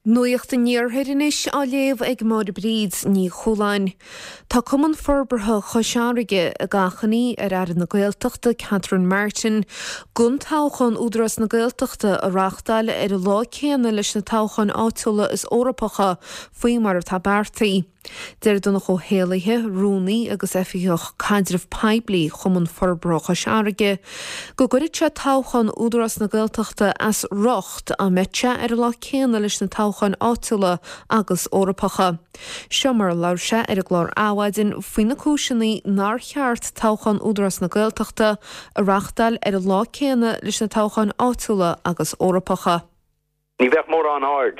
Nuacht an Iarthair anois á léamh ag Máire Bríd Ní Chualáin. Tá Cumann Forbartha Chois Fharraige ag achainí ar Aire na Gaeltachta Catherine Martin gan toghchán Údarás na Gaeltachta a reáchtáil ar an lá céanna leis na toghcháin áitiúla is Eorpacha faoi mar atá beartaithe. Deir Donncha Ó hÉallaithe, Rúnaí agus Oifigeach Caidreamh Poiblí Chumann Forbartha Chois Fharraige, go gcuirfeadh sé toghchán Údarás na Gaeltachta as riocht dá mbeadh sé ar an lá céanna leis na toghcháin áitiúla agus Eorpacha. Seo mar a labhair sé ar an gclár Adhmhaidin faoi na cúiseanna nár cheart toghchán Údarás na Gaeltachta a reáchtáil ar an lá céanna leis na toghcháin áitiúla agus Eorpacha. Ní bheadh mórán aird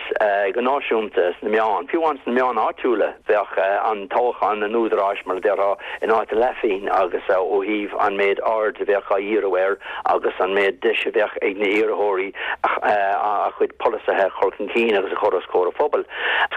go náisiúnta sna meáin, fiú amháin sna meáin áitiúla, bheadh an toghchán an Údaráis, mar a déarfá, in áit a leathphingin agus ó thaobh an méid aird a bheadh á dhíriú air agus an méid deis a bheadh ag na hiarrthóirí a gcuid polasaithe a chur chun cinn agus a chur os comhair an phobail.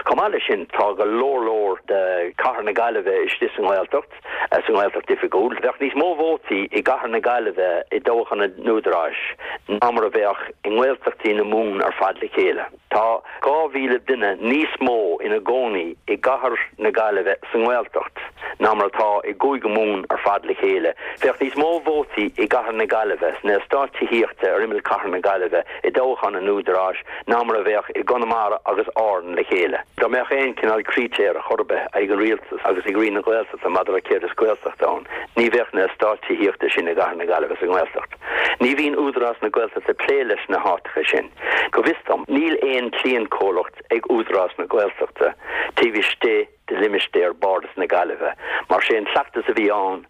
Chomh maith leis sin, tá go leor leor de chathair na Gaillimhe istigh sa nGaeltacht. sa nGaeltacht Oifigiúil. Bheadh níos mó vótaí i gcathair na Gaillimhe i dtoghchán an Údaráis ná mar a bheadh i nGaeltachtaí na Mumhan ar fad le chéile. Tá 2,000 duine níos mó ina gcónaí i gcathair na Gaillimhe sa nGaeltacht ná mar atá i gCúige Mumhan ar fad le chéile. Bheadh níos mó vótaí i gcathair na Gaillimhe sna eastáit tithíochta ar imeall chathair na Gaillimhe i dtoghchán an Údaráis ná mar a bheadh i gConamara agus Árainn le chéile. Dá mbeadh aon chineál critéir chor ar bith ag an rialtas agus ag Roinn na Gaeltachta maidir le céard is Gaeltacht ann, ní bheadh na eastáit tithíochta sin i gcathair na Gaillimhe sa nGaeltacht. Ní bhíonn Údarás na Gaeltachta ag plé leis na háiteacha sin. Go bhfios dom, níl aon cliantchomhlacht ag Údarás na Gaeltachta taobh istigh de limistéar Bhardas na Gaillimhe, mar sé an cleachtas a bhí ann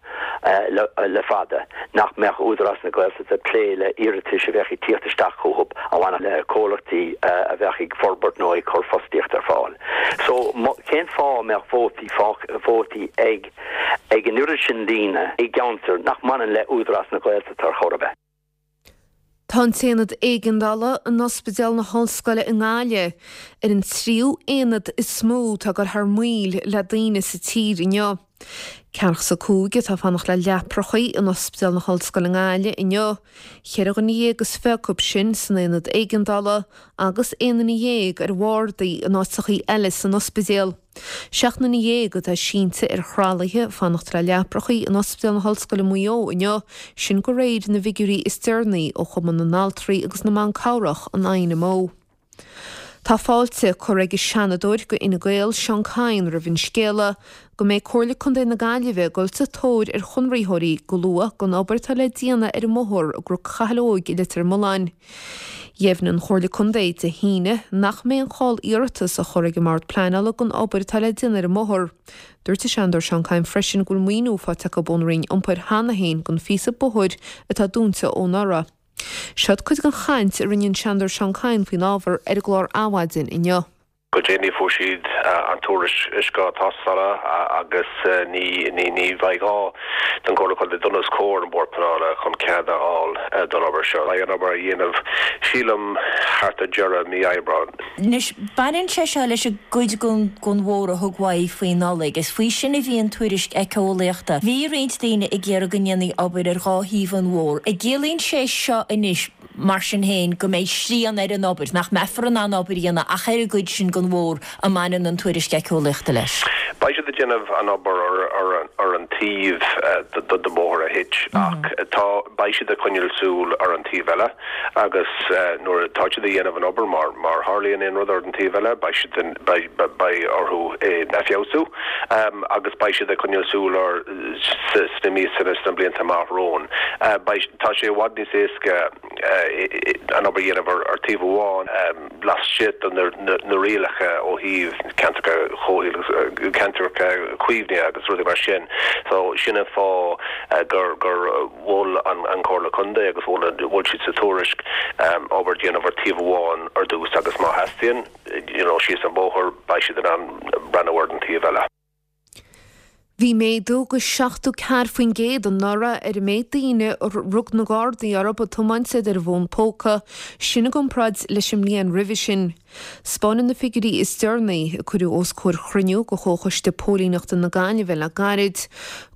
le fada nach mbeadh Údarás na Gaeltachta ag plé le iarratais a bheadh ag tíocht isteach chucu a bhainfeadh le comhlachtaí a bheadh ag forbairt nó ag cur fostaíocht ar fáil. So, cén fáth a mbeadh vótaí, vótaí ag ag an oiread sin daoine i gceantar nach mbaineann le Údarás na Gaeltachta ar chor ar bith? Tá an tAonad Éigeandála in Ospidéal na hOllscoile i nGaillimh ar an tríú aonad is mó atá ag dul thar maoil le daoine sa tír inniu. Ceathracha 5 atá ag fanacht le leaprachaí in Ospidéal na hOllscoile i nGaillimh inniu, cheithre dhuine dhéag is fiche acu sin san aonad éigeandála agus aon duine dhéag ar bhardaí in áiteachaí eile san ospidéal. 17 nduine atá sínte ar thralaithe ag fanacht le leaprachaí in Ospidéal na hOllscoile Maigh Eo inniu, sin de réir na bhfigiúirí is deireanaí ó Chumann na nAltraí agus na mBan Cabhrach, an INMO. Tá fáilte curtha ag an Seanadóir do Fhine Gael, Seán Kyne roimh an scéala go mbeidh Comhairle Contae na Gaillimhe ag dul sa tóir ar chonraitheoirí go luath don obair atá le déanamh ar an mbóthar i gCnoc Chathail Óig i Leitir Mealláin. Dheimhnigh an Chomhairle Contae Dé hAoine nach mbeidh aon chall iarratas á chur ag an mBord Pleanála don obair atá le déanamh ar an mbóthar. Dúirt an Seanadóir Seán Kyne freisin go bhfuil maoiniú faighte acu ón Roinn Iompair cheana féin don phíosa bóthair atá dúnta ó anuraidh. Seod cuid den chaint a rinne an Seanadóir Seán Kyne faoin ábhar ar an gclár Adhmhaidin inniu. Go déanaí fuair siad an tuairisc tástála agus ní bheidh gá don Chomhairle Contae dul os comhair an Bhord Pleanála chun cead a fháil don obair seo. Beidh an obair á dhéanamh, sílim, thart ar deireadh mí Aibreáin. Anois, baineann sé seo leis an gcuid den bhóthar a thug uaidh faoi Nollaig. Is faoi sin a bhí an tuairisc éiceolaíochta. Bhí roinnt daoine ag iarraidh go ndéanfaí obair ar dhá thaobh an bhóthair. An gciallaíonn sé seo anois, mar sin féin, go mbeidh srian ar an obair, nach mbeifear in ann obair a dhéanamh ach ar an gcuid sin den bhóthar a mbaineann an tuairisc éiceolaíochta leis. Beidh siad ag déanamh an obair ar an taobh den bhóthar a thit ach tá, beidh siad ag coinneáil súil ar an taobh eile agus nuair atá siad ag dhéanamh an obair, má tharlaíonn aon rud ar an taobh eile, beidh siad, beidh orthu é a feabhsú agus beidh siad ag coinneáil súil air sna míosa nó sna blianta amach romhainn. Beidh, tá sé i bhfad níos éasca an obair a dhéanamh ar taobh amháin laistigh de na rialacha ó thaobh ceantracha comhshaoil, ceantracha caomhnaithe agus rudaí mar sin. So sin an fáth gur gur mhol an Chomhairle Contae agus mhol mhol siad sa tuairisc obair a dhéanamh ar taobh amháin ar dtús agus má theastaíonn, you know, síos an bóthar beidh siad in ann breathnú ar an taobh eile. Bhí méadú de 74% anuraidh ar an méid daoine a rug na Gardaí orthu ag tiomáint is iad ar a bhfón póca, sin i gcomparáid leis an mbliain roimhe sin. 'Spáineann na figiúirí is deireanaí, a cuireadh os comhair chruinniú de Chomhchoiste Póilíneachta na Gaillimhe le gairid,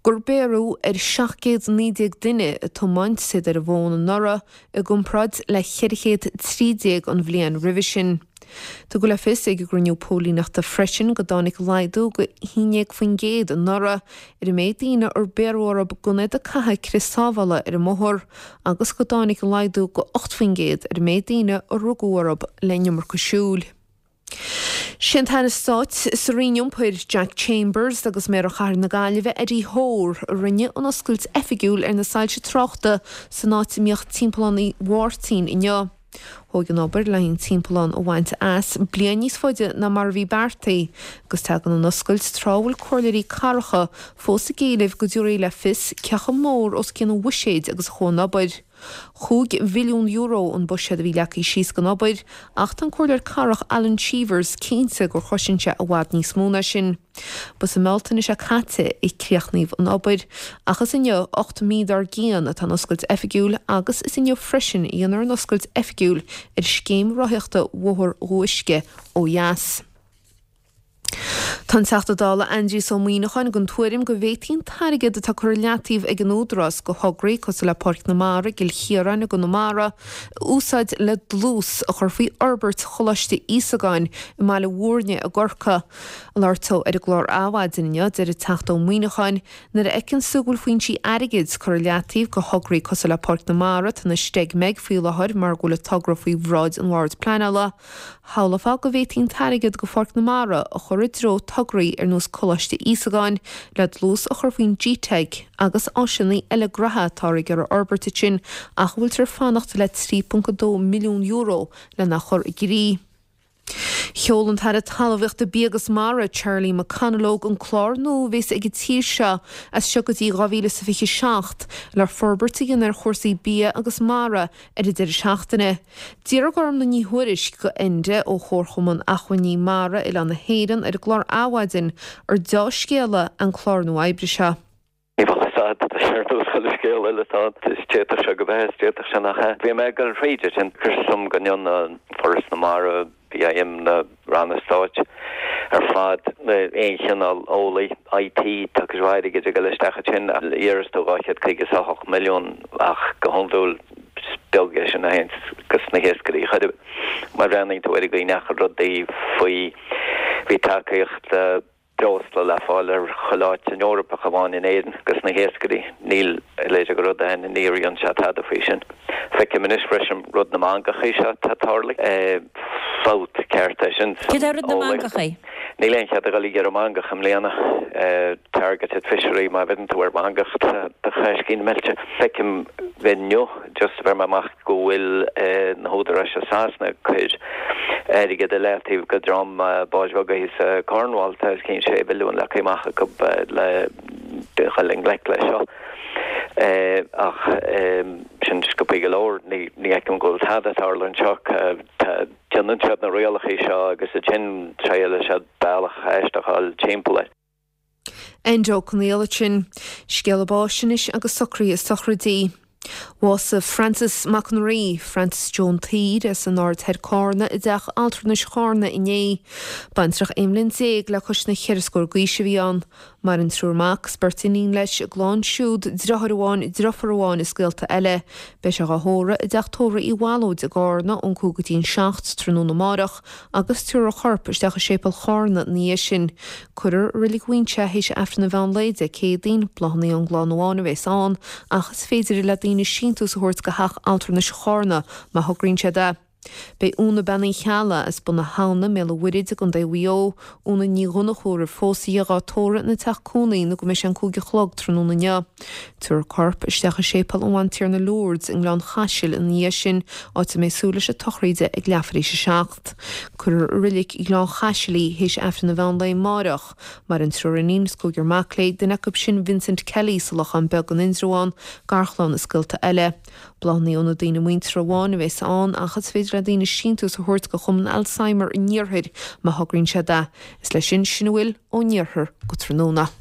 gur béarradh ar 719 duine ag tiomáint is iad ar a bhfón anuraidh i gcomparáid le 413 an bhliain roimhe sin. Tugadh le fios ag an gcruinniú póilíneachta freisin go dtáinig laghdú go 11% anuraidh ar an méid daoine ar bhéarradh orthu gan iad ag caitheamh crios sábhála ar an mbóthar agus go dtáinig laghdú go 8% ar an méid daoine a rugadh orthu le an iomarca siúil. Sé an tAire Stáit sa Roinn Iompair, Jack Chambers agus Méara Chathair na Gaillimhe, Eddie Hoare, a rinne an oscailt oifigiúil ar na soilse tráchta san áit a mbíodh Timpeallán Uí Mháirtín inniu. Thóg an obair le an timpeallán a bhaint as bliain níos faide ná mar a bhí beartaithe agus tagann an oscailt tráth a bhfuil comhairleoirí cathracha fós ag éileamh go dtabharfaí le fios cé chomh mór os cionn an bhuiséid agus a chuaigh an obair. €5 mhilliún an buiséad a bhí leagtha síos don obair ach tá an comhairleoir cathrach Alan Cheevers cinnte gur chosain sé i bhfad níos mó ná sin. Ba sa mBealtaine seo caite a críochnaíodh an obair, ach is inniu, 8 mí dár gcionn, atá an oscailt oifigiúil agus is inniu freisin a dhéanfar an oscailt oifigiúil ar scéim rothaíochta Bhóthar Dhumha Uisce ó dheas. Tá an Teachta Dála Aindrias Ó Muimhneacháin den tuairim go bhféadfaí an t-airgead atá curtha i leataobh ag an Údarás do thograí cosúil le Páirc na Mara i gCill Chiaráin i gConamara a úsáid le dlús a chur faoi fhorbairt Choláiste Íosagáin i mBaile Mhúirne i gCorcaigh. Ag labhairt dó ar an gclár Adhmhaidin inniu, deir an Teachta Ó Muimhneacháin, Nuair a fheiceanns tú go bhfuil foinsí airgid curtha i leataobh do thograí cosúil le Páirc na Mara, atá ina steig-meig faoi láthair mar go bhfuil an togra faoi bhráid an Bhoird Pleanála, shamhlófá go bhféadfaí an t-airgead do Pháirc na Mara a chur i dtreo tograí ar nós Coláiste Íosagáin le dlús a chur faoin GTeic agus áiseanna eile graithe atáthar ag iarraidh a fhorbairt ansin ach a bhfuiltear ag fanacht le €3.2 milliún lena chur i gcrích. Sheol an tAire Talmhaíochta, Bia agus Mara, Charlie McConalogue, an clár nua a bhéas ag an tír seo as seo go dtí 2027 le forbairt a dhéanamh ar chúrsaí bia agus mara ar an deireadh seachtaine. D'fhiafraigh Gormlaith Ní Thuairisg go Enda ó Chomharchumann Acmhainní Mara Oileán na hÉireann ar an gclár Adhmhaidin ar deá-scéala an clár nua oibre seo. Ní bheadh fhios a'd, tá sé ar nós chuile scéal eile atá ann, is d'fhéadfadh sé go bheith, is d'fhéadfadh sé nach ea. Bhí mé ag dul thríd é sin, cuir suim go ndéanann Foras na Mara, BIM, na ranna stáit ar fad, aon chineál eolaí, IT, tá cuid mhaith airgid ag dul isteach ansin, iarras tú 258 milliún ach go hiondúil is beag é sin a théann go sna hiascairí chor ar bith. Má bhreathnaíonn tú ar an gcaoi a ndeachaigh rudaí faoi, bhí tacaíocht, breosla le fáil ar chuile áit san Eoraip ach amháin in Éirinn dos na hiascairí. Níl a leithéid de rud ann, níor dhein sé tada faoi sin. Feicim anois freisin rud na mangachaí seo atá tarlaithe. Fabht ceart é sin san Céard é rud na eolaíocht. mangachaí? Níl aon chead a dhul ag iarraidh mangach i mbliana. Targeted fishery, má bheireann tú ar mhangach tá do chaiscín meilte. Feicim inniu just a bheir mé amach go bhfuil na húdaráis i Sasana ag cur airgead i leataobh go dream báid bheaga thíos i Cornwall, tá os cionn 6 mhilliún leagtha amach acu le dhul i ngleic leis seo. Ach sin sciobthaí go leor, ní fheicim go bhfuil tada ag tarlú anseo. Déanann siad na rialacha seo agus ansin triaileann siad bealach aisteach a fháil timpeall air. Enda Ó Conghaile ansin. Scéala báis anois agus socruithe sochraidí. Bhásaigh Francis Mac an Rí, Francis Joe an tSaoir, as an Aird Thoir Cárna i dteach altranais Chárna inné. Baintreach 11 mbliain le cois na cheithre scór d'aois a bhí ann. Maireann triúr mac is beirt iníon leis, a gclann siúd, driotháir amháin, driofúr amháin is gaolta eile. Beidh sé dhá thórramh i dteach tórraimh Uí Bhallóid i gCárna ón 5 go dtí an 7 tráthnóna amáireach agus tabharfar a chorp isteach i séipéal Chárna ina dhiaidh sin. Cuirfear i Reilig Mhuinseo é théis Aifreann an mheán lae Dé Céadaoin, bláthanna ón gclann amháin a bhéas ann, ach is féidir le daoine síntiús a thabhairt go theach altranais Chárna má thograíonn siad é. Beidh Úna Bean Uí Cheallaigh as Bun na hAbhna, mBéal an Mhuirthid i gContae Mhaigh Eo, Úna Ní Dhonnchú roimh phósadh di dhá tórramh ina teach cónaí nó go mbeidh sé an 5 a chlog tráthnóna inniu. Tabharfar a corp isteach i Séipéal an Bhantiarna Lourdes i nGleann Chaisil ina dhiaidh sin, áit a mbeidh súil leis an tsochraid ag leathuair théis a 7. Cuirfear i Reilig Ghleann Chaisil í théis Aifreann an mheán lae amáireach. Maireann triúr iníon is cúigear mac léi, duine acu sin Vincent Kelly sa Lochán Beag in Indreabhán, garchlann is gaolta eile. Bláthanna ó na daoine muinteartha amháin a bheas ann ach is féidir le daoine síntiús a thabhairt go Chumann Alzheimer an Iarthair má thograíonn siad é. Is leis sin sin a bhfuil ón Iarthar go tráthnóna.